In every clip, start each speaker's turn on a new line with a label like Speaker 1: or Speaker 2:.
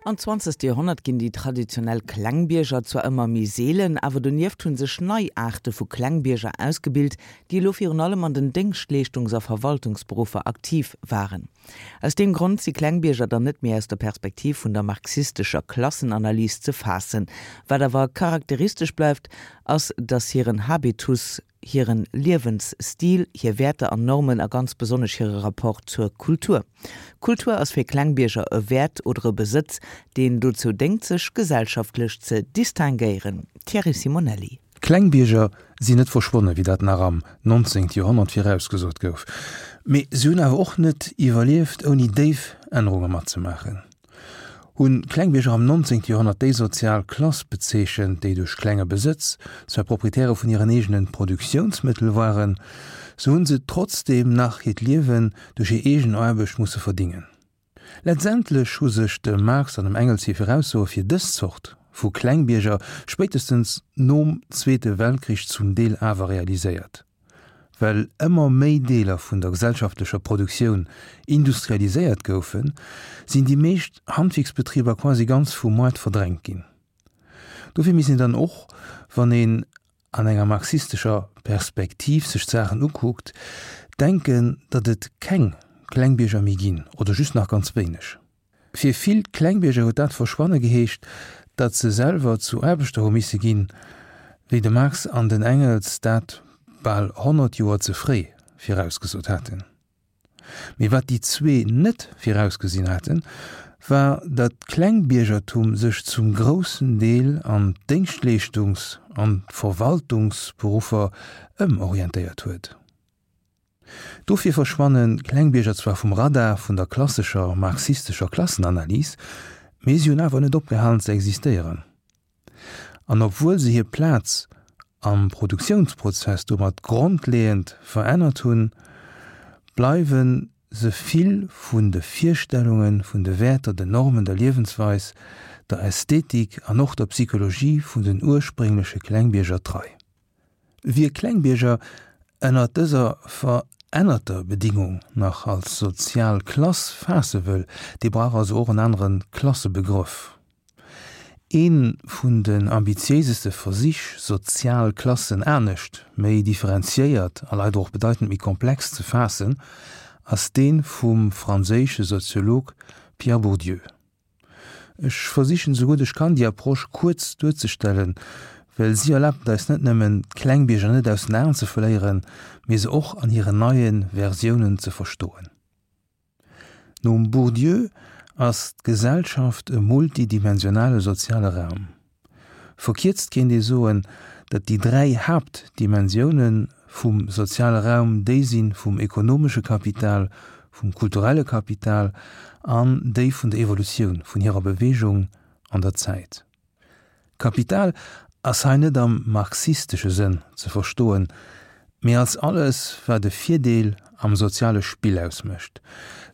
Speaker 1: Am zwanzegste Joerhonnert ginn déi traditionell Klengbierger zwar ëmmer méi seelen, awer donieft hu sech nei Aarte vu Klengbierger ausgebilt, déi elo virun allem an den Déngschtleeschtungs a Verwaltungsberuffer aktiv waren. Aus deem Grond si Klengbierger dann net méi aus der Perspektiv vun der marxistescher Klassenanalys ze faassen. Wat awer charakteristesch bleift, ass, datt hiren Habitus, hiren Liewensstil, hir Wäerter an Normen a ganz besonnesch hire Rapport zur Kultur. Kultur ass fir Klengbierger e Wäert oder e Besëtz, deen dozou déngt sech gesellschaftlech ze distinguéieren. Thierry Simonelli.
Speaker 2: D'Klengbierger sinn net verschwonne wéi dat nach am 19. Joerhonnert virausgesot gouf, mee se hunn awer och net iwwerlieft ouni déif Ännerunge matzemaachen. Hunn d'Klengbierger am 19. Joerhonnert déi sozial Klass bezeechent, déi duerch klenge Besëtz zwar Proprietäre vun hiren eegene Produktiounsmëttel waren, sou hunn se trotzdeem nach hiert Liewen duerch hir eegen Aarbecht musse verdingen. Letztendlech hu sech dem Marx an dem Engels hir Viraussoe fir dës Zort vu Klengbierger spéitestens nom Zweete Weltkrich zum Deel awer realiséiert. Well ëmmer méi Deeler vun der gesellschaftlecher Produktioun industrialiséiert goufen, sinn déi meescht Handwierksbetriber quasi ganz vum Moart verdrängt ginn. Dofir misst een dann och, wann een an enger marxistescher Perspektiv sech d'Saachen ukuckt, denken, datt et keng Klengbierger méi ginn oder just nach ganz wéineg. Fir vill Klengbierger huet dat Verschwanne geheescht, datt se selwer zu Aarbechter hu misse ginn, wéi de Marx an den Engels dat bal 100 Joer ze fréi virausgesot haten. Mee wat déi zwee net virausgesinn haten, war, datt d'Klengbiergertum sech zum groussen Deel an d'Déngschtleeschtungs an d'Verwaltungsberuffer ëmorientéiert huet. Dofir verschwanne Klengbierger zwar vum Radar vun der klassescher marxistescher Klassenanalys, mee si hunn awer net opgehalen ze existéieren. An obwuel se hir Plaz am Produktiounsprozess domat grondleeënd verännert hunn, bleiwe se vill vun de Virstellunge vun de Wäerter, den Normen, der Liewensweis, der Ästhetik an och der Psychologie vun den urspréngleche Klengbierger trei. Wie Klengbierger ënnert dëser verännerter Bedingung nach als sozial Klass faasse wëll, dee brauch also och en anere Klassebegrëff. Ee vun den ambitiéiseste Versich, sozial Klassen anescht, méi differenziéiert a leider och bedeitend méi komplex ze faassen, ass dee vum franséische Soziolog Pierre Bourdieu. Ech versichen esou gutt ech kann déi Approche kuerz duerzestellen, well si erlaabt et eis net nëmmen d'Klengbierger net aus den Aen ze verléieren, mee se och an hiren neie Versiounen ze verstoen. Nom Bourdieu ass d'Gesellschaft e multidimensionale soziale Raum. Verkierzt kéint ee soen, datt déi 3 Haaptdimensioune vum soziale Raum déi si vum ekonomesche Kapital, vum kulturelle Kapital an déi vun der Evolutioun, vun hirer Beweegung an der Zäit. Kapital ass hei net am marxistesche Sënn ze verstoen, mee als alles, wat e Virdeel am soziale Spill ausmécht.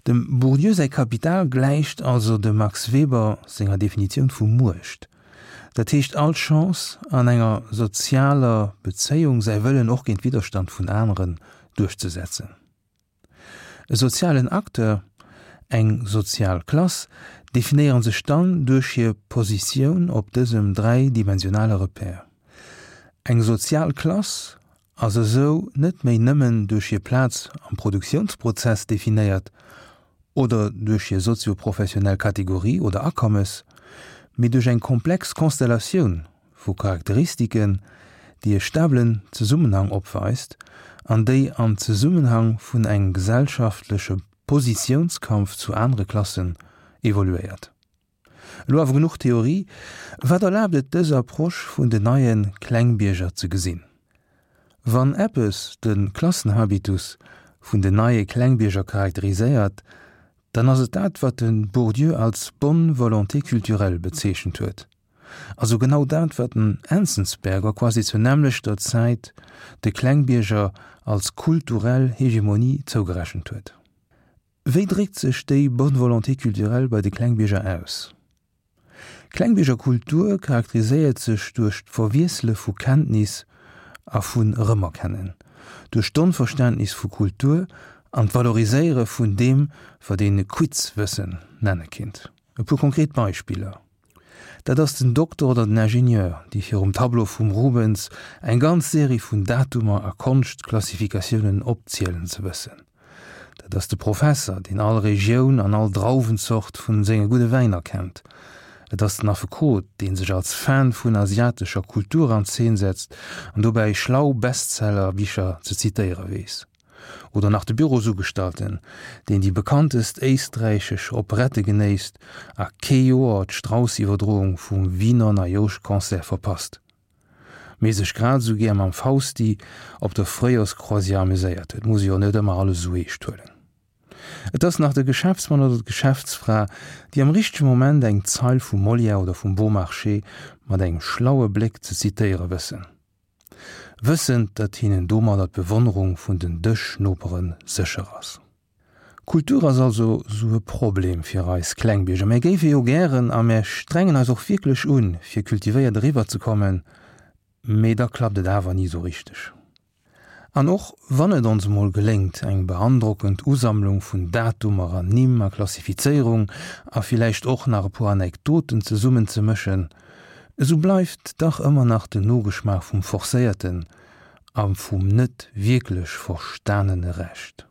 Speaker 2: Dem Bourdieu säi Kapital gläicht also dem Max Weber senger Definitioun vu Muecht, dat heescht all Chance an enger sozialer Bezéiung säi Wëllen och géint Widderstand vun aneren duerchzesetzen. E sozialen Acteur, eng sozial Klass, definéiere sech dann duerch hir Positioun op dësem dräidimensionale Repère. Eng sozial Klass ass esou net méi nëmmen duerch hir Plaz am Produktiounsprozess definéiert oder duerch hir sozio-professionell Kategorie oder Akommes, mee duerch eng komplex Konstellatioun vu Charakteristiken, déi e stabelen Zesummenhang opweist an déi am Zesummenhang vun engem gesellschaftleche Positiounskampf zu anere Klassen evoluéiert. Elo awer genuch Theorie, wat erlaabt et dës Approche vun den neie Klengbierger ze gesinn? Wann eppes de Klassenhabitus vun den neie Klengbierger charakteriséiert, dann ass et dat wat de Bourdieu als bonne volonté culturelle bezeechent huet. Also genau dat wat den Enzensberger quasi zur nämmlechter Zäit de Klengbierger als kulturell Hegemonie zougerechent huet. Wéi dréckt sech déi bonne volonté culturelle bei de Klengbierger aus? Klengbiergerkultur charakteriséiert sech duerch d'Verwiessele vu Kenntnis a vun Erëmerkennen, duerch d'Onverständnis vu Kultur an d'Valoriséiere vun deem, wat een Quizwëssen nenne kinnt. E puer konkret Beispiller, Dat ass den Dokter oder den Ingenieur, déi virum Tableau vum Rubens eng ganz Serie vun Datumer a Konschtklassifikatiounen opzielen ze wëssen. Dat ass de Professer, deen all Regioun an all Drauwenzort vun senge gudde Wäiner kennt. Et ass den Affekot, dee sech als Fan vun asiatescher Kultur an Zeen setzt an dobäi schlau Bestseller-Bicher ze zitéiere weess. Oder nach de Bürosugestalten, deen déi bekanntest éisträichesch Operette genéisst a kee Joer d'Strauss-Iwwerdroung vum Wiener Neijoschconcert verpasst, mee sech grad esou gär mam Fausti op der Fréijorscroisière amuséiert huet. Muss ee jo net ëmmer alles esou eescht huelen. Et ass nach de Geschäftsmann oder d'Geschäftsfra, déi am richtege Moment eng Zeil vum Molière oder vum Beaumarchais mat engem schlaue Bléck ze zitéiere wëssen. Wëssend, datt hinnen domadder d'Bewonnerung vun den Dëschnopere sécher ass. Kultur ass also sou e Problem fir eis Klengbierger. Mär géife jo gären a mär strengen eis och wierklech un, fir kultivéiert eriwwer ze kommen, mee da klappt et awer ni sou richteg. An och wann et ons emol geléngt, eng beandrockend Usammlung vun Datumer an Nimm a Klassifizéierung a villäicht och nach e puer Anekdoten zesummen ze mëschen, Esou bleift dach ëmmer nach den Nogeschmaach vum forcéierten a vum net wierklech verstanene Recht.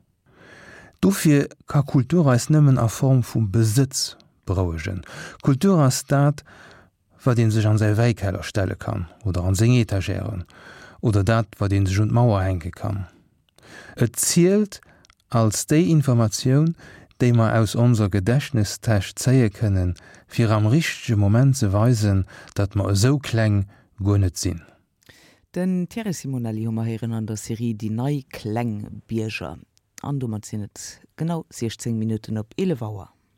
Speaker 2: Dofir ka Kultur eis nëmmen a Form vu Besëtz berouegen. Kultur ass dat, wat ee sech an säi Wäikeller stelle kann oder an seng Etagèren oder dat, wat ee sech un d'Mauer hänke kann. Et zielt als déi Informatioun, déi mer aus onser Gedächtnestäsch zéie kënnen, fir am richtege Moment ze weisen, datt mer esou kleng guer net sinn.
Speaker 1: Den Thierry Simonelli hu mer héieren an der Serie Déi nei kleng Bierger. An domat sinn et genau 16 Minutten op 11 Auer.